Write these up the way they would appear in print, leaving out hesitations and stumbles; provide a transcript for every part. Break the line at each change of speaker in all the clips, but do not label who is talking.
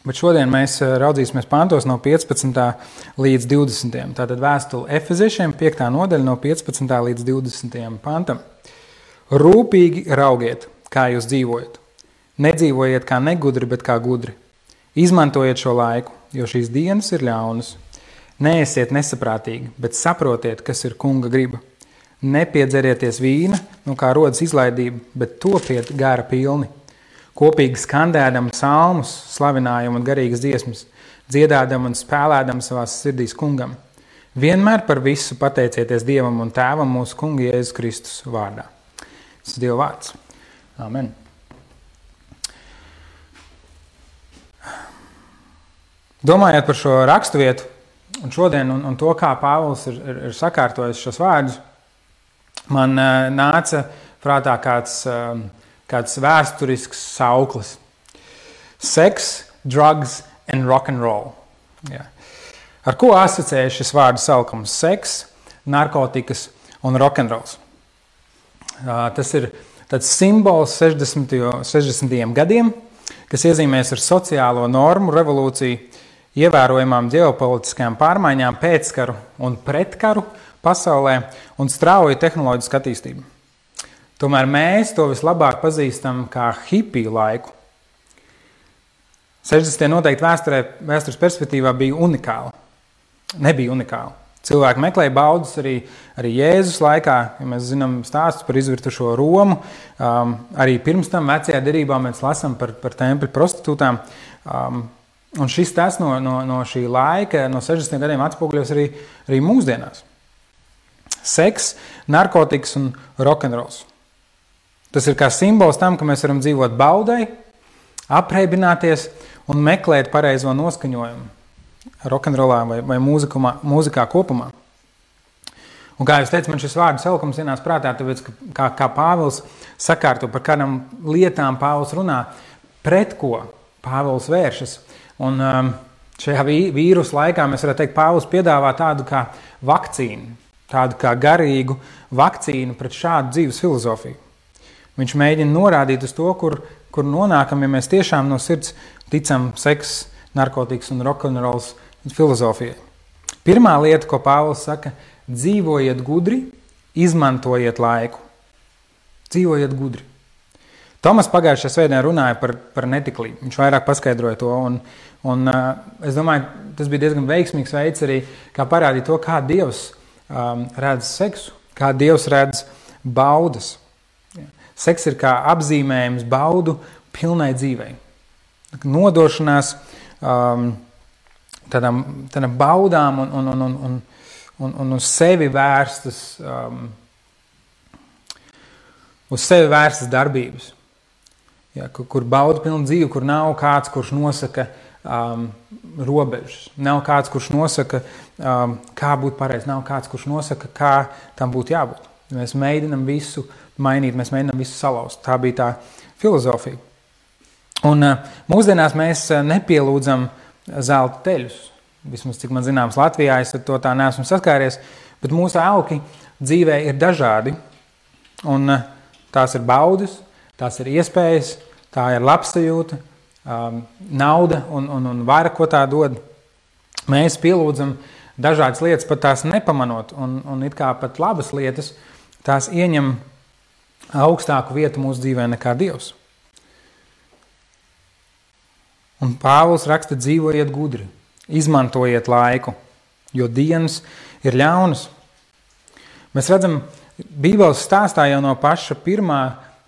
Bet šodien mēs raudzīsimies pantos no 15. līdz 20. Tātad vēstule Efeziešiem 5. nodaļa no 15. līdz 20. pantam. Rūpīgi raugiet, kā jūs dzīvojat. Nedzīvojiet kā negudri, bet kā gudri. Izmantojiet šo laiku, jo šīs dienas ir ļaunas. Neesiet nesaprātīgi, bet saprotiet, kas ir kunga griba. Nepiedzerieties vīna, no kā rodas izlaidība, bet topiet gara pilni. Kopīgi skandēdam psalmus, slavinājumu un garīgas dziesmas, dziedādam un spēlēdam savās sirdīs kungam. Vienmēr par visu pateicieties Dievam un Tēvam mūsu kunga Jēzus Kristus vārdā. Tas ir Dieva vārds. Amen. Domājot par šo raksturvietu un šodien un to, kā Pāvils ir sakārtojis šos vārdus, man nāca prātā kāds vēsturisks sauklis. Sex, drugs and rock and roll. Jā. Ar ko asociējas šis vārdu saukums? Seks, narkotikas un rock and rolls. Tas ir tāds simbols 60. gadiem, kas iezīmēs ar sociālo normu revolūciju, ievērojamām ģeopolitiskajām pārmaiņām, pēckaru un pretkaru pasaulē un strauju tehnoloģisku attīstību. Tomēr mēs to vislabāk pazīstam kā hipiju laiku. 60. noteikti vēstures perspektīvā bija unikāli. Nebija unikāli. Cilvēki meklēja baudas arī Jēzus laikā, ja mēs zinām stāstus par izvirtušo Romu. Arī pirms tam vecajā derībā mēs lasām par tempļu prostitūtām. Un šis tas no šī laika, no 60. gadiem atspoguļos arī mūsdienās. Seks, narkotikas un rokenrols. Tas ir kā simbols tam, ka mēs varam dzīvot baudai, apreibināties un meklēt pareizo noskaņojumu rokenrolā vai mūzikā kopumā. Un kā jūs teicat, man šis vārdu saukums ienāca prātā, tāpēc, kā Pāvils sakārto, par kādām lietām Pāvils runā, pret ko Pāvils vēršas. Un šajā vīrusu laikā mēs varētu teikt, Pāvils piedāvā tādu kā vakcīnu, tādu kā garīgu vakcīnu pret šādu dzīves filozofiju. Viņš mēģina norādīt uz to, kur nonākam, ja mēs tiešām no sirds ticam seks, narkotikas un rokenrols filozofijai. Pirmā lieta, ko Pāvils saka, dzīvojiet gudri, izmantojiet laiku. Dzīvojiet gudri. Tomas pagājušajā svētdienā runāja par netiklību. Viņš vairāk paskaidroja to, un es domāju, tas bija diezgan veiksmīgs veids arī, kā parādīt to, kā Dievs redz seksu, kā Dievs redz baudas. Seks ir kā apzīmējums baudu pilnai dzīvei. Nodošanās tādām baudām un uz sevi vērstas, darbības. Ja, kur bauda pilna dzīve, kur nav kāds, kurš nosaka robežas. Nav kāds, kurš nosaka, kā būt pareizi. Nav kāds, kurš nosaka, kā tam būtu jābūt. Mēs mēģinam visu mainīt, mēs mēģinam visu salauzt. Tā bija tā filozofija. Un mūsdienās mēs nepielūdzam zelta teļus. Vismaz, cik man zināms, Latvijā es ar to tā neesmu saskāries, bet mūsu auki dzīvē ir dažādi. Un tās ir baudas, tās ir iespējas, tā ir labsajūta, nauda un vara, ko tā dod. Mēs pielūdzam dažādas lietas, pat tās nepamanot, un it kā pat labas lietas, tās ieņem augstāku vietu mūsu dzīvē nekā Dievs. Un Pāvils raksta, dzīvojiet gudri, izmantojiet laiku, jo dienas ir ļaunas. Mēs redzam, Bībeles stāstā jau no paša pirmā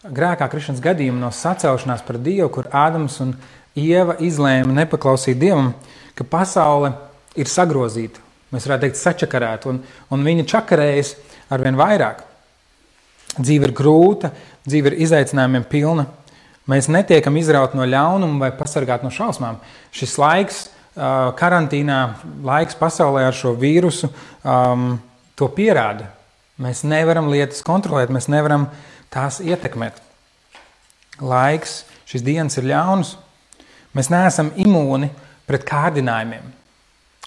grēkā krišanas gadījuma, no sacelšanās par Dievu, kur Ādams un Ieva izlēma nepaklausīt Dievam, ka pasaule ir sagrozīta. Mēs varētu teikt sačakarēta, un viņa čakarējas arvien vairāk. Dzīve ir grūta, dzīve ir izaicinājumiem pilna. Mēs netiekam izraut no ļaunuma vai pasargāt no šausmām. Šis laiks, karantīnā, laiks pasaulē ar šo vīrusu, to pierāda. Mēs nevaram lietas kontrolēt, mēs nevaram tās ietekmēt. Laiks, šīs dienas ir ļaunas. Mēs neesam imūni pret kārdinājumiem.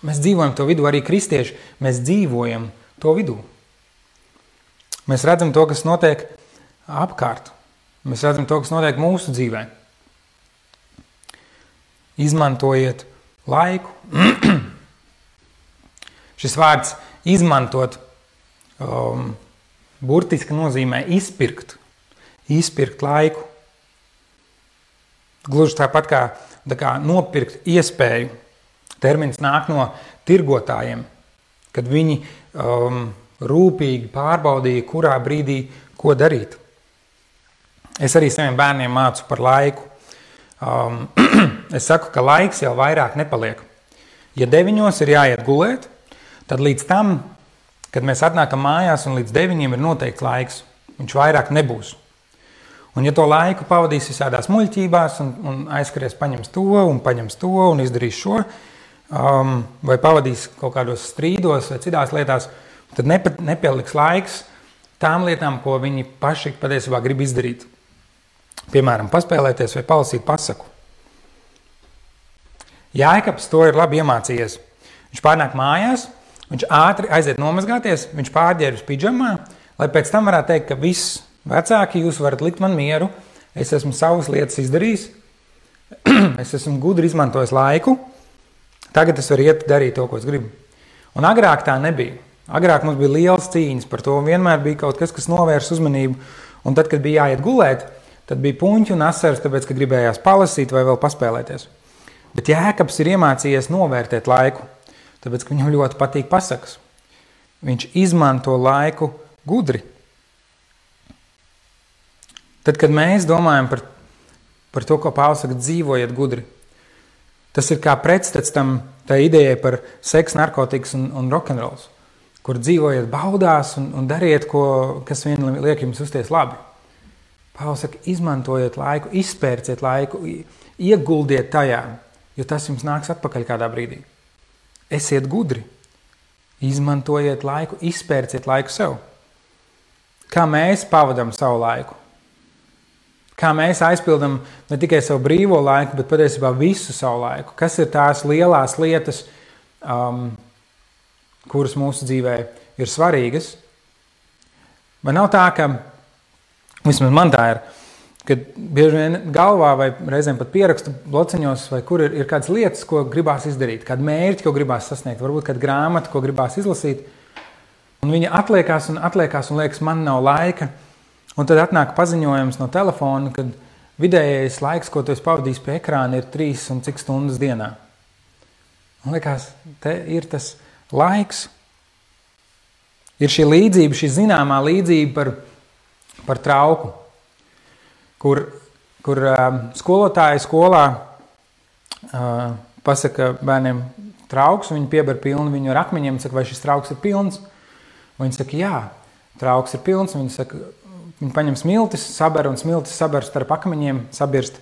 Mēs dzīvojam to vidū, arī kristieši, mēs dzīvojam to vidū. Mēs redzam to, kas notiek apkārt. Mēs redzam to, kas notiek mūsu dzīvē. Izmantojiet laiku. Šis vārds izmantot burtiski nozīmē izpirkt laiku. Gluži tāpat kā nopirkt iespēju. Termins nāk no tirgotājiem, kad viņi rūpīgi pārbaudīja, kurā brīdī ko darīt. Es arī saviem bērniem mācu par laiku. Es saku, ka laiks jau vairāk nepaliek. Ja 9 ir jāiet gulēt, tad līdz tam, kad mēs atnākam mājās un līdz 9 ir noteikts laiks, viņš vairāk nebūs. Un ja to laiku pavadīs visādās muļķībās un aizskaries paņems to un izdarīs šo, vai pavadīs kaut kādos strīdos vai citās lietās, tad nepieliks laiks tām lietām, ko viņi paši patiesībā grib izdarīt. Piemēram, paspēlēties vai palasīt pasaku. Jāekabs to ir labi iemācījies. Viņš pārnāk mājās, viņš ātri aiziet nomazgāties, viņš pārģērbs pidžamā, lai pēc tam varētu teikt, ka viss vecāki, jūs varat likt man mieru, es esmu savas lietas izdarījis, es esmu gudri izmantojis laiku, tagad es varu iet darīt to, ko es gribu. Un agrāk tā nebija. Agrāk mums bija lielas cīņas par to, un vienmēr bija kaut kas, kas novērs uzmanību, un tad, kad bija jāiet gulēt, tad bija puņķi un asaras, tāpēc, ka gribējās palasīt vai vēl paspēlēties. Bet Jēkabs ir iemācījies novērtēt laiku, tāpēc, ka viņam ļoti patīk pasakas. Viņš izmanto laiku gudri. Tad, kad mēs domājam par to, ko Pāvils saka, dzīvojiet gudri, tas ir kā pretstats tā idejai par seks, narkotikas un rokenrols, kur dzīvojiet baudās un dariet, kas vien liek jums uzties labi. Pāvils saka, izmantojiet laiku, izpērciet laiku, ieguldiet tajā, jo tas jums nāks atpakaļ kādā brīdī. Esiet gudri, izmantojiet laiku, izpērciet laiku sev. Kā mēs pavadam savu laiku? Kā mēs aizpildam ne tikai savu brīvo laiku, bet patiesībā visu savu laiku? Kas ir tās lielās lietas, kuras mūsu dzīvē ir svarīgas? Vai nav tā, ka vismaz man tā ir, kad bieži vien galvā vai reizēm pat pierakstu blociņos, vai kur ir kādas lietas, ko gribās izdarīt, kādu mērķi, ko gribās sasniegt, varbūt kādu grāmatu, ko gribās izlasīt, un viņa atliekās un liekas, man nav laika, un tad atnāk paziņojums no telefona, kad vidējais laiks, ko tu esi pavadījis pie ekrāna, ir 3 un cik stundas dienā. Un liekas, te ir tas laiks. Ir šī līdzība, šī zināmā līdzība par trauku, kur skolotāji skolā pasaka bērniem trauks, un viņi pieber pilnu viņu ar akmeņiem, un saka, vai šis trauks ir pilns? Un viņi saka, jā, trauks ir pilns, un viņi saka, viņi paņem smiltis, saber, un smiltis saber starp akmeņiem, sabirst.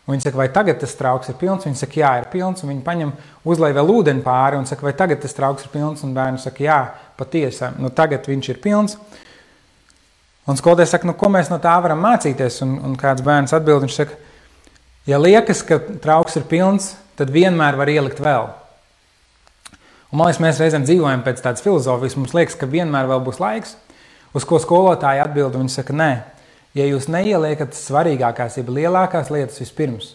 Un viņi saka, vai tagad tas trauks ir pilns? Viņi saka, jā, ir pilns, un viņi paņem uzlej vēl ūdeni pāri, un saka, vai tagad tas trauks ir pilns? Un bērni saka, jā, patiesi, tagad viņš ir pilns. Un skolotājs saka, ko mēs no tā varam mācīties? Un kāds bērns atbild, viņš saka, ja liekas, ka trauks ir pilns, tad vienmēr var ielikt vēl. Un man liekas, mēs reizēm dzīvojam pēc tādas filozofijas, mums liekas, ka vienmēr vēl būs laiks, uz ko skolotāji atbild, un viņi saka, nē, ja jūs neieliekat svarīgākās, jeb lielākās lietas vispirms,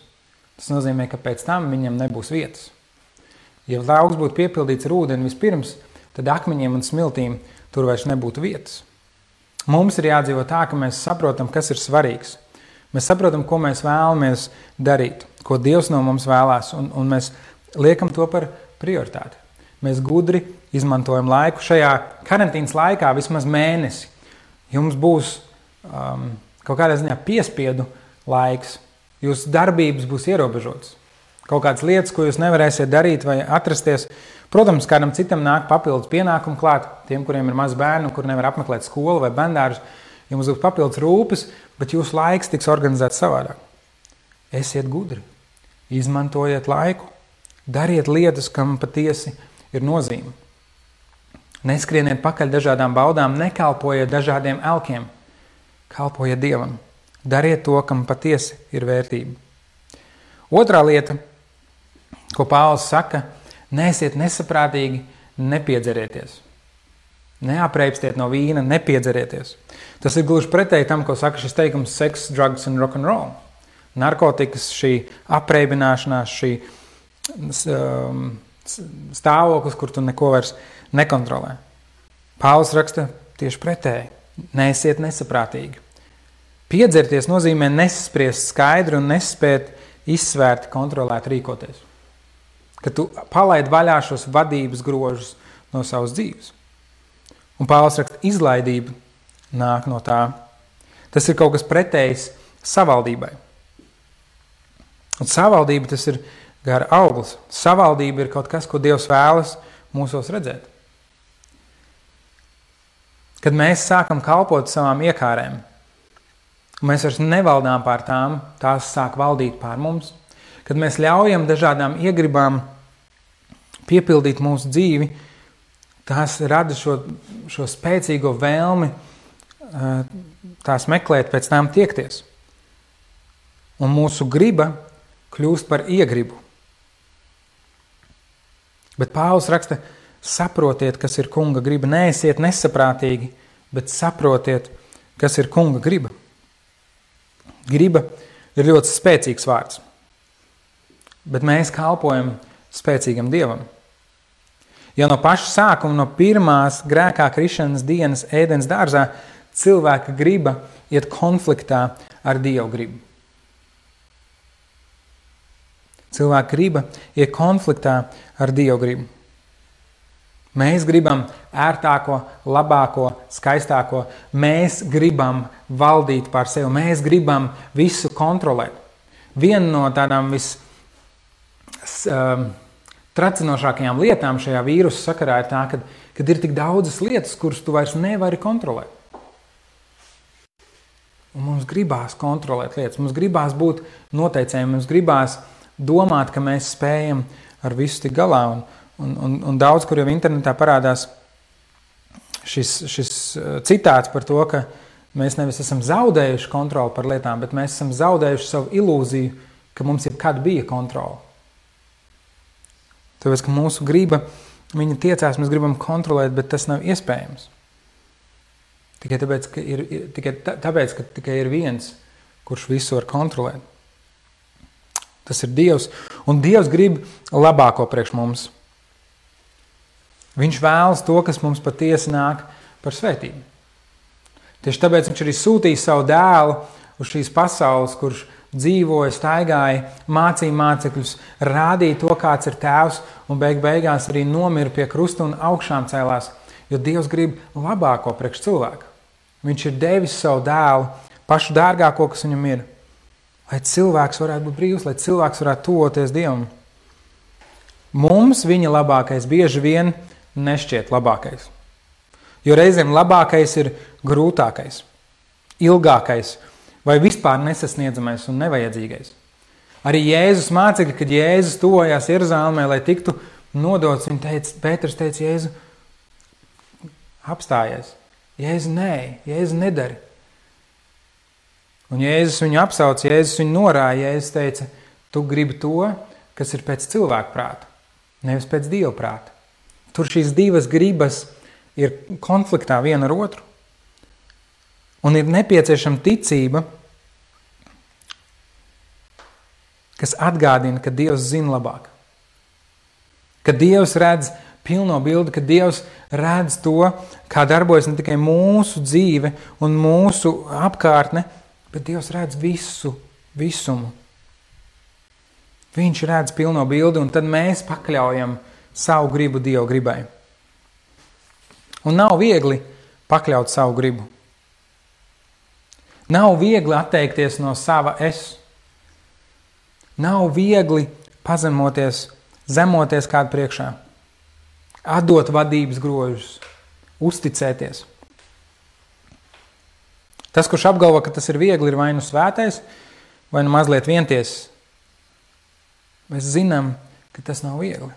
tas nozīmē, ka pēc tam viņam nebūs vietas. Ja trauks būtu piepildīts ar ūdeni vispirms, tad akmeņiem un smiltīm tur vairs nebūtu vietas. Mums ir jādzīvo tā, ka mēs saprotam, kas ir svarīgs. Mēs saprotam, ko mēs vēlamies darīt, ko Dievs no mums vēlās, un mēs liekam to par prioritāti. Mēs gudri izmantojam laiku šajā karantīnas laikā vismaz mēnesi. Jums būs kaut kādā ziņā piespiedu laiks, jūsu darbības būs ierobežotas. Kaut kādas lietas, ko jūs nevarēsiet darīt vai atrasties. Protams, kādam citam nāk papildus pienākumu klāt, tiem, kuriem ir maz bērnu, kur nevar apmeklēt skolu vai bērndārus, jums būs papildus rūpes, bet jūsu laiks tiks organizēts savādāk. Esiet gudri, izmantojiet laiku, dariet lietas, kam patiesi ir nozīme. Neskrieniet pakaļ dažādām baudām, nekalpojiet dažādiem elkiem, kalpojiet Dievam, dariet to, kam patiesi ir vērtība. Otrā lieta, ko Pāvils saka, neesiet nesaprātīgi, nepiedzerieties. Neapreipstiet no vīna, nepiedzerieties. Tas ir gluži pretēji tam, ko saka šis teikums sex, drugs and rock'n'roll. Narkotikas, šī apreibināšanās, šī stāvoklis, kur tu neko vairs nekontrolē. Pāvils raksta tieši pretēji. Neesiet nesaprātīgi. Piedzerties nozīmē nesaspriest skaidri un nespēt izsvērt, kontrolēt, rīkoties. Kad tu palaid vaļā šos vadības grožus no savas dzīves. Un Pāvils raksta, izlaidība nāk no tā. Tas ir kaut kas pretējs savaldībai. Un savaldība tas ir gara auglis. Savaldība ir kaut kas, ko Dievs vēlas mūsos redzēt. Kad mēs sākam kalpot savām iekārēm, mēs vairs nevaldām pār tām, tās sāk valdīt pār mums. Kad mēs ļaujam dažādām iegribām piepildīt mūsu dzīvi, tās rada šo spēcīgo vēlmi tās meklēt, pēc tām tiekties. Un mūsu griba kļūst par iegribu. Bet Pāvils raksta, saprotiet, kas ir kunga griba. Neesiet nesaprātīgi, bet saprotiet, kas ir kunga griba. Griba ir ļoti spēcīgs vārds. Bet mēs kalpojam spēcīgam Dievam. Ja no paša sākuma, no pirmās grēkā krišanas dienas ēdens dārzā, cilvēka griba iet konfliktā ar Dievu gribu. Cilvēka griba iet konfliktā ar Dievu gribu. Mēs gribam ērtāko, labāko, skaistāko. Mēs gribam valdīt pār sevi. Mēs gribam visu kontrolēt. Viena no tādām tracinošākajām lietām šajā vīrusu sakarā ir tā, kad ir tik daudzas lietas, kuras tu vairs nevari kontrolēt. Un mums gribās kontrolēt lietas. Mums gribās būt noteicējiem. Mums gribās domāt, ka mēs spējam ar visu tik galā. Un daudz, kur jau internetā parādās šis citāts par to, ka mēs nevis esam zaudējuši kontroli par lietām, bet mēs esam zaudējuši savu ilūziju, ka mums jebkad bija kontrola. Tāpēc, ka mūsu griba, viņa tiecās, mēs gribam kontrolēt, bet tas nav iespējams. Tikai tāpēc, ka tikai ir viens, kurš visu var kontrolēt. Tas ir Dievs, un Dievs grib labāko priekš mums. Viņš vēlas to, kas mums patiesi nāk par svētību. Tieši tāpēc viņš arī sūtīja savu dēlu uz šīs pasaules, kurš dzīvoja, staigāja, mācīja mācekļus, rādīja to, kāds ir tēvs, un beigās arī nomira pie krusta un augšām cēlās, jo Dievs grib labāko priekš cilvēku. Viņš ir devis savu dēlu, pašu dārgāko, kas viņam ir, lai cilvēks varētu būt brīvs, lai cilvēks varētu tuvoties Dievam. Mums viņa labākais bieži vien nešķiet labākais. Jo reizēm labākais ir grūtākais, ilgākais vai vispār nesasniedzamais un nevajadzīgais. Arī Jēzus mācekļi, kad Jēzus tuvojās Jeruzalemē, lai tiktu nodots, Pēters teica, Jēzu, apstājies. Jēzu, nē, Jēzu nedari. Un Jēzus viņu apsauc, Jēzus viņu norāja, Jēzus teica, tu gribi to, kas ir pēc cilvēka prāta, nevis pēc Dieva prāta. Tur šīs divas gribas ir konfliktā viena ar otru. Un ir nepieciešama ticība, kas atgādina, ka Dievs zina labāk. Ka Dievs redz pilno bildi, ka Dievs redz to, kā darbojas ne tikai mūsu dzīve un mūsu apkārtne, bet Dievs redz visumu. Viņš redz pilno bildi, un tad mēs pakļaujam savu gribu Dieva gribai. Un nav viegli pakļaut savu gribu. Nav viegli atteikties no sava es. Nav viegli pazemoties, zemoties kādu priekšā. Atdot vadības grožus, uzticēties. Tas, kurš apgalvo, ka tas ir viegli, ir vai nu svētais, vai nu mazliet vientiesis. Mēs zinām, ka tas nav viegli.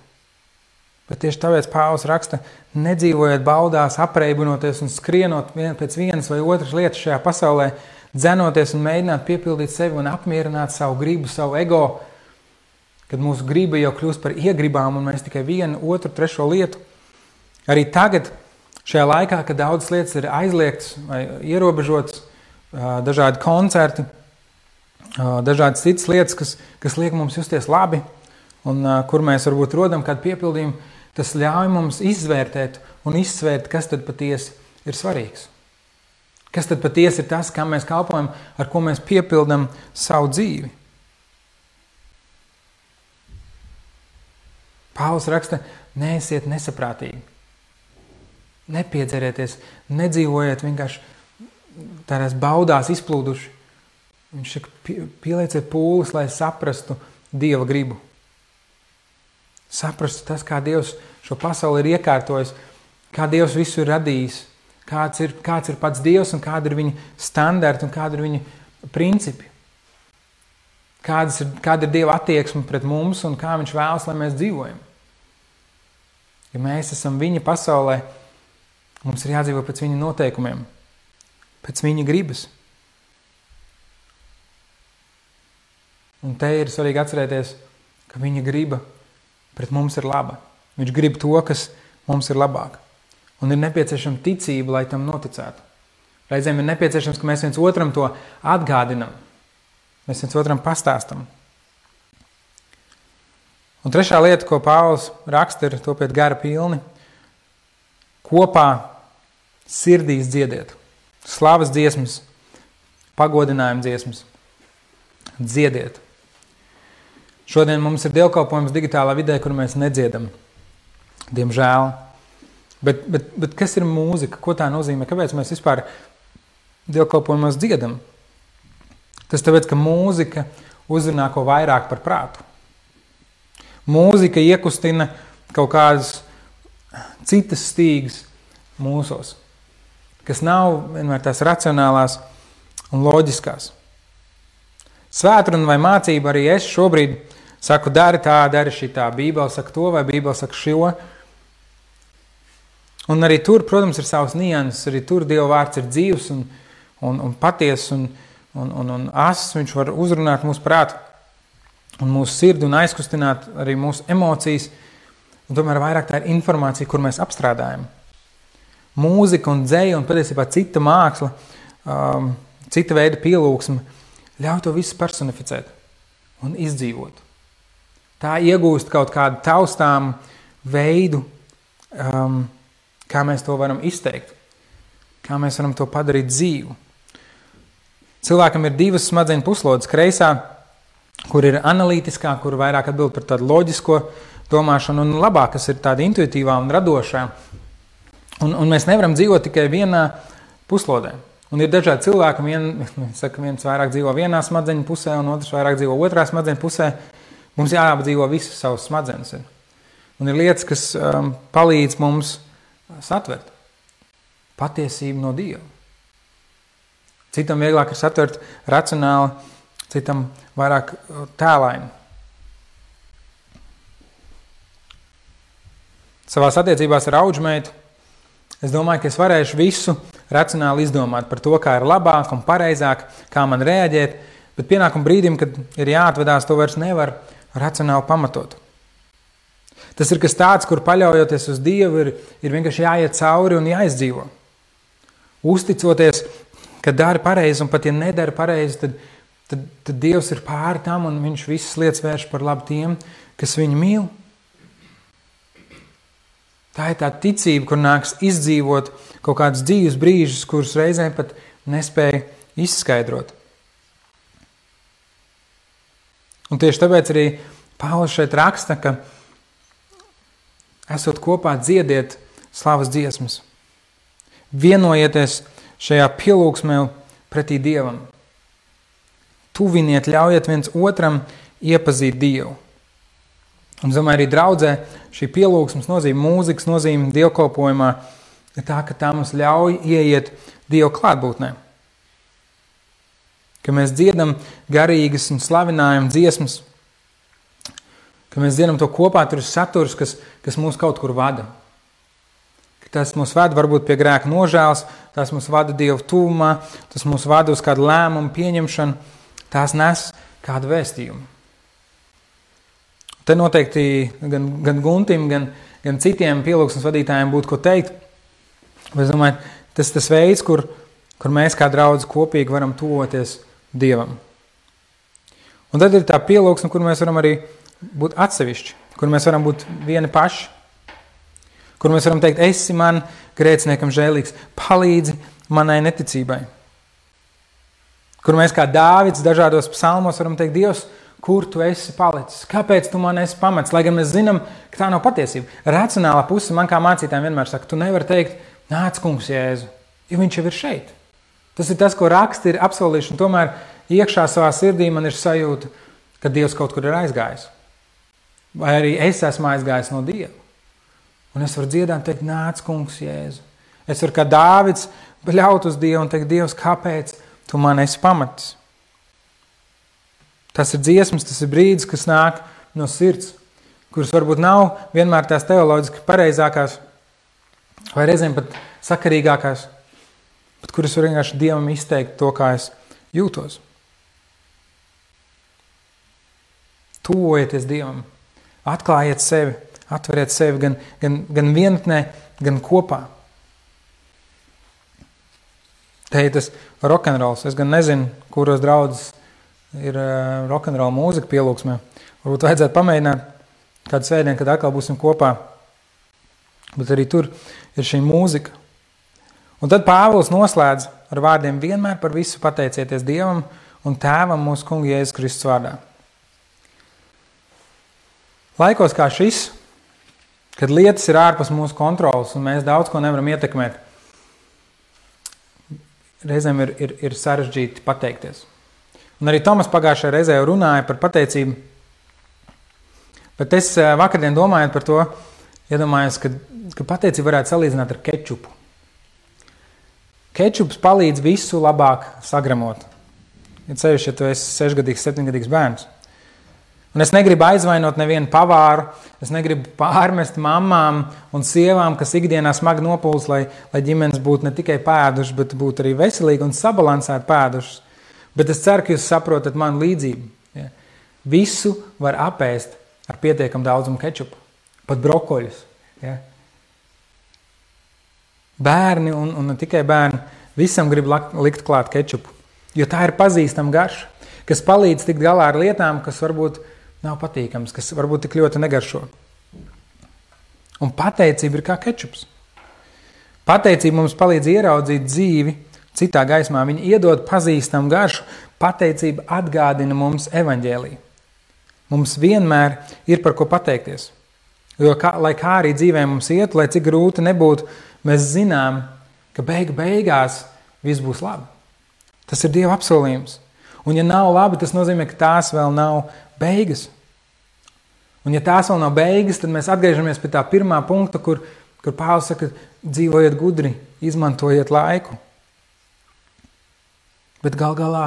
Bet tieši tāpēc Pāvils raksta, nedzīvojiet baudās, apreibinoties un skrienot pēc vienas vai otras lietas šajā pasaulē, dzenoties un mēģināt piepildīt sevi un apmierināt savu gribu, savu ego, kad mūsu griba jau kļūst par iegribām un mēs tikai vienu, otru, trešo lietu. Arī tagad, šajā laikā, kad daudzas lietas ir aizliegtas vai ierobežotas, dažādi koncerti, dažādas citas lietas, kas liek mums justies labi un kur mēs varbūt rodam kādu piepildījumu, tas ļauj mums izvērtēt un izsvērt, kas tad patiesi ir svarīgs. Kas tad patiesi ir tas, kam mēs kalpojam, ar ko mēs piepildam savu dzīvi. Pāvils raksta, neesiet nesaprātīgi. Nepiedzerieties, nedzīvojiet vienkārši tādās baudās izplūduši. Viņš saka, pielieciet pūles, lai saprastu Dieva gribu. Saprastu tas, kā Dievs šo pasauli ir iekārtojis, kā Dievs visu ir radījis, kāds ir pats Dievs un kāda ir viņa standarti un kāda ir viņa principi. Kāda ir Dieva attieksme pret mums un kā viņš vēlas, lai mēs dzīvojam. Ja mēs esam viņa pasaulē, mums ir jādzīvo pēc viņa noteikumiem, pēc viņa gribas. Un te ir svarīgi atcerēties, ka viņa griba pret mums ir laba. Viņš grib to, kas mums ir labāk. Un ir nepieciešama ticība, lai tam noticētu. Reizēm ir nepieciešams, ka mēs viens otram to atgādinam. Mēs viens otram pastāstam. Un trešā lieta, ko Pāvils raksta, ir topiet gara pilni. Kopā sirdīs dziediet. Slavas dziesmas, pagodinājuma dziesmas. Dziediet. Šodien mums ir dievkalpojums digitālā vidē, kur mēs nedziedam. Diemžēl. Bet kas ir mūzika? Ko tā nozīmē? Kāpēc mēs vispār dievkalpojumos dziedam? Tas tāpēc, ka mūzika uzrunā ko vairāk par prātu. Mūzika iekustina kaut kādas citas stīgas mūsos, kas nav vienmēr tās racionālās un loģiskās. Svētruna vai mācība arī es šobrīd saku, dari tā, dari šitā, Bībele saka to vai Bībele saka šo. Un arī tur, protams, ir savas nianses, arī tur Dieva vārds ir dzīvs un patiess un ass, viņš var uzrunāt mūsu prātu un mūsu sirdi un aizkustināt arī mūsu emocijas. Un tomēr vairāk tā ir informācija, kur mēs apstrādājam. Mūzika un dzeja un patiesībā cita māksla, cita veida pielūgsme ļauj to visu personificēt un izdzīvot. Tā iegūst kaut kādu taustām veidu, kā mēs to varam izteikt, kā mēs varam to padarīt dzīvu. Cilvēkam ir divas smadzeņu puslodes, kreisā, kur ir analītiskā, kur vairāk atbild par tādu loģisko domāšanu, un labā, kas ir tāda intuitīvā un radošā. Un mēs nevaram dzīvot tikai vienā puslodē. Un ir dažādi cilvēki, viens vairāk dzīvo vienā smadzeņu pusē, un otrs vairāk dzīvo otrā smadzeņu pusē. Mums jāapdzīvo visas savas smadzenes. Un ir lietas, kas palīdz mums satvert patiesību no Dieva. Citam vieglāk ir satvert racionāli, citam vairāk tēlaini. Savās attiecībās ar audžmeitu es domāju, ka es varēšu visu racionāli izdomāt par to, kā ir labāk un pareizāk, kā man reaģēt, bet pienākuma brīdim, kad ir jāatvedās, to vairs nevar racionāli pamatot. Tas ir kas tāds, kur paļaujoties uz Dievu, ir vienkārši jāiet cauri un jāizdzīvo. Uzticoties, ka dari pareizi, un pat ja nedari pareizi, tad Dievs ir pāri tam, un viņš visas lietas vērš par labu tiem, kas viņu mīl. Tā ir tā ticība, kur nāks izdzīvot kaut kādus dzīves brīžus, kurus reizēm pat nespēja izskaidrot. Un tieši tāpēc arī Pāvils šeit raksta, ka esot kopā dziediet slavas dziesmas. Vienojieties šajā pielūgsmē pretī Dievam. Tuviniet, ļaujiet viens otram iepazīt Dievu. Un, domāju, arī draudzē šī pielūgsmes nozīme, mūzikas nozīme dievkalpojumā ir tā, ka tā mums ļauj ieiet Dieva klātbūtnē. Ka mēs dziedam garīgas un slavinājam dziesmas, ka mēs dziedam to kopā, tur ir saturs, kas mūs kaut kur vada. Ka tas mūs vada varbūt pie grēka nožēlas, tas mūs vada Dieva tuvumā, tas mūs vada uz kādu lēmumu pieņemšanu, tās nes kādu vēstījumu. Te noteikti gan Guntim, gan citiem pielūgsmes vadītājiem būtu ko teikt. Bet es domāju, tas veids, kur mēs kā draudzi kopīgi varam tuvoties Dievam. Un tad ir tā pielūgsme, kur mēs varam arī būt atsevišķi, kur mēs varam būt vieni paši, kur mēs varam teikt, esi man grēciniekam žēlīgs, palīdzi manai neticībai. Kur mēs kā Dāvids dažādos psalmos varam teikt, Dievs, kur tu esi palicis? Kāpēc tu man esi pamets? Lai gan mēs zinām, ka tā nav patiesība. Racionālā puse man kā mācītājiem vienmēr saka, tu nevari teikt, nāc kungs Jēzu, jo viņš jau ir šeit. Tas ir tas, ko raksti ir apsolījuši, un tomēr iekšā savā sirdī man ir sajūta, ka Dievs kaut kur ir aizgājis. Vai arī es esmu aizgājis no Dieva. Un es varu dziedāt, teikt, nāc kungs Jēzu. Es varu kā Dāvids bļaut uz Dievu un teikt, Dievs, kāpēc tu man esi pamatis? Tas ir dziesmas, tas ir brīdis, kas nāk no sirds, kuras varbūt nav vienmēr tās teoloģiski pareizākās, vai reizēm pat sakarīgākās, bet kuras var vienkārši Dievam izteikt to, kā es jūtos. Tuvojieties Dievam, atklājiet sevi, atveriet sevi gan vienatnē, gan kopā. Te ir tas rokenrols. Es gan nezinu, kuros draudzes ir rokenrola mūzika pielūgsmē. Varbūt vajadzētu pamēģināt kādu svētdienu, kad atkal būsim kopā. Bet arī tur ir šī mūzika. Un tad Pāvils noslēdz ar vārdiem vienmēr par visu pateicieties Dievam un Tēvam mūsu Kunga Jēzus Kristus vārdā. Laikos kā šis, kad lietas ir ārpus mūsu kontrolas un mēs daudz ko nevaram ietekmēt, reizēm ir sarežģīti pateikties. Un arī Tomas pagājušajā reizē jau runāja par pateicību, bet es vakardien domājot par to, iedomājos, ka pateicību varētu salīdzināt ar kečupu. Kečups palīdz visu labāk sagramot. Ja ceļš, ja tu esi 6-gadīgs, 7-gadīgs bērns. Un es negribu aizvainot nevienu pavāru, es negribu pārmest mammām un sievām, kas ikdienā smagi nopūlas, lai ģimenes būtu ne tikai pēduši, bet būtu arī veselīgi un sabalansēti pēdušas. Bet es ceru, ka jūs saprotat manu līdzību. Ja? Visu var apēst ar pietiekam daudzumu kečupu, pat brokoļus. Ja? Bērni un ne tikai bērni, visam grib likt klāt kečupu, jo tā ir pazīstama garša, kas palīdz tikt galā ar lietām, kas varbūt nav patīkams, kas varbūt tik ļoti negaršo. Un pateicība ir kā kečups. Pateicība mums palīdz ieraudzīt dzīvi citā gaismā. Viņa iedod pazīstamu garšu. Pateicība atgādina mums evaņģēliju. Mums vienmēr ir par ko pateikties. Jo, lai kā arī dzīvē mums iet, lai cik grūti nebūtu, mēs zinām, ka beigās viss būs labi. Tas ir Dieva apsolījums. Un ja nav labi, tas nozīmē, ka tās vēl nav beigas. Un ja tās vēl nav beigas, tad mēs atgriežamies pie tā pirmā punkta, kur Pāvils saka, dzīvojiet gudri, izmantojiet laiku. Bet gal galā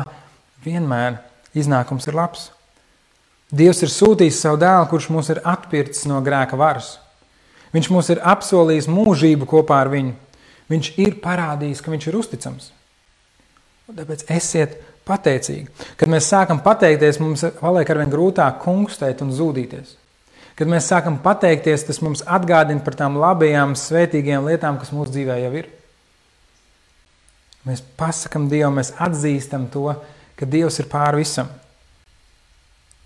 vienmēr iznākums ir labs. Dievs ir sūtījis savu dēlu, kurš mūs ir atpircis no grēka varas. Viņš mūs ir apsolījis mūžību kopā ar viņu. Viņš ir parādījis, ka viņš ir uzticams. Un tāpēc esiet pateicīgi. Kad mēs sākam pateikties, mums paliek arvien grūtāk kungstēt un zūdīties. Kad mēs sākam pateikties, tas mums atgādina par tām labajām, svētīgajām lietām, kas mūsu dzīvē jau ir. Mēs pasakam Dievam, mēs atzīstam to, ka Dievs ir pār visam.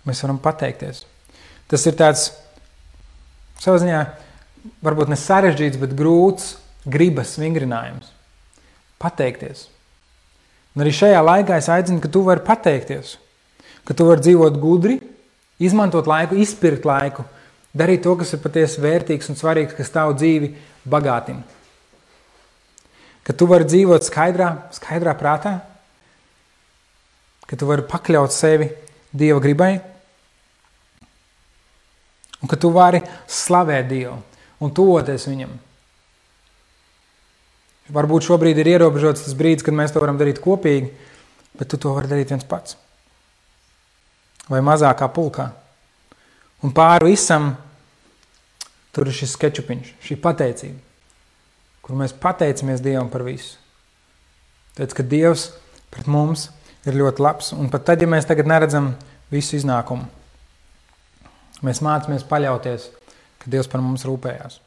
Mēs varam pateikties. Tas ir tāds, savā ziņā, varbūt ne sarežģīts, bet grūts gribas vingrinājums. Pateikties. Un arī šajā laikā es aicinu, ka tu vari pateikties, ka tu vari dzīvot gudri, izmantot laiku, izpirkt laiku, darīt to, kas ir patiesi vērtīgs un svarīgs, kas tavu dzīvi bagātina. Ka tu vari dzīvot skaidrā prātā, ka tu vari pakļaut sevi Dieva gribai, un ka tu vari slavēt Dievu un tuvoties viņam. Varbūt šobrīd ir ierobežots tas brīdis, kad mēs to varam darīt kopīgi, bet tu to vari darīt viens pats. Vai mazākā pulkā. Un pāri visam tur ir šis kečupiņš, šī pateicība, kur mēs pateicamies Dievam par visu. Tāpēc, ka Dievs pret mums ir ļoti labs. Un pat tad, ja mēs tagad neredzam visu iznākumu, mēs mācāmies paļauties, ka Dievs par mums rūpējās.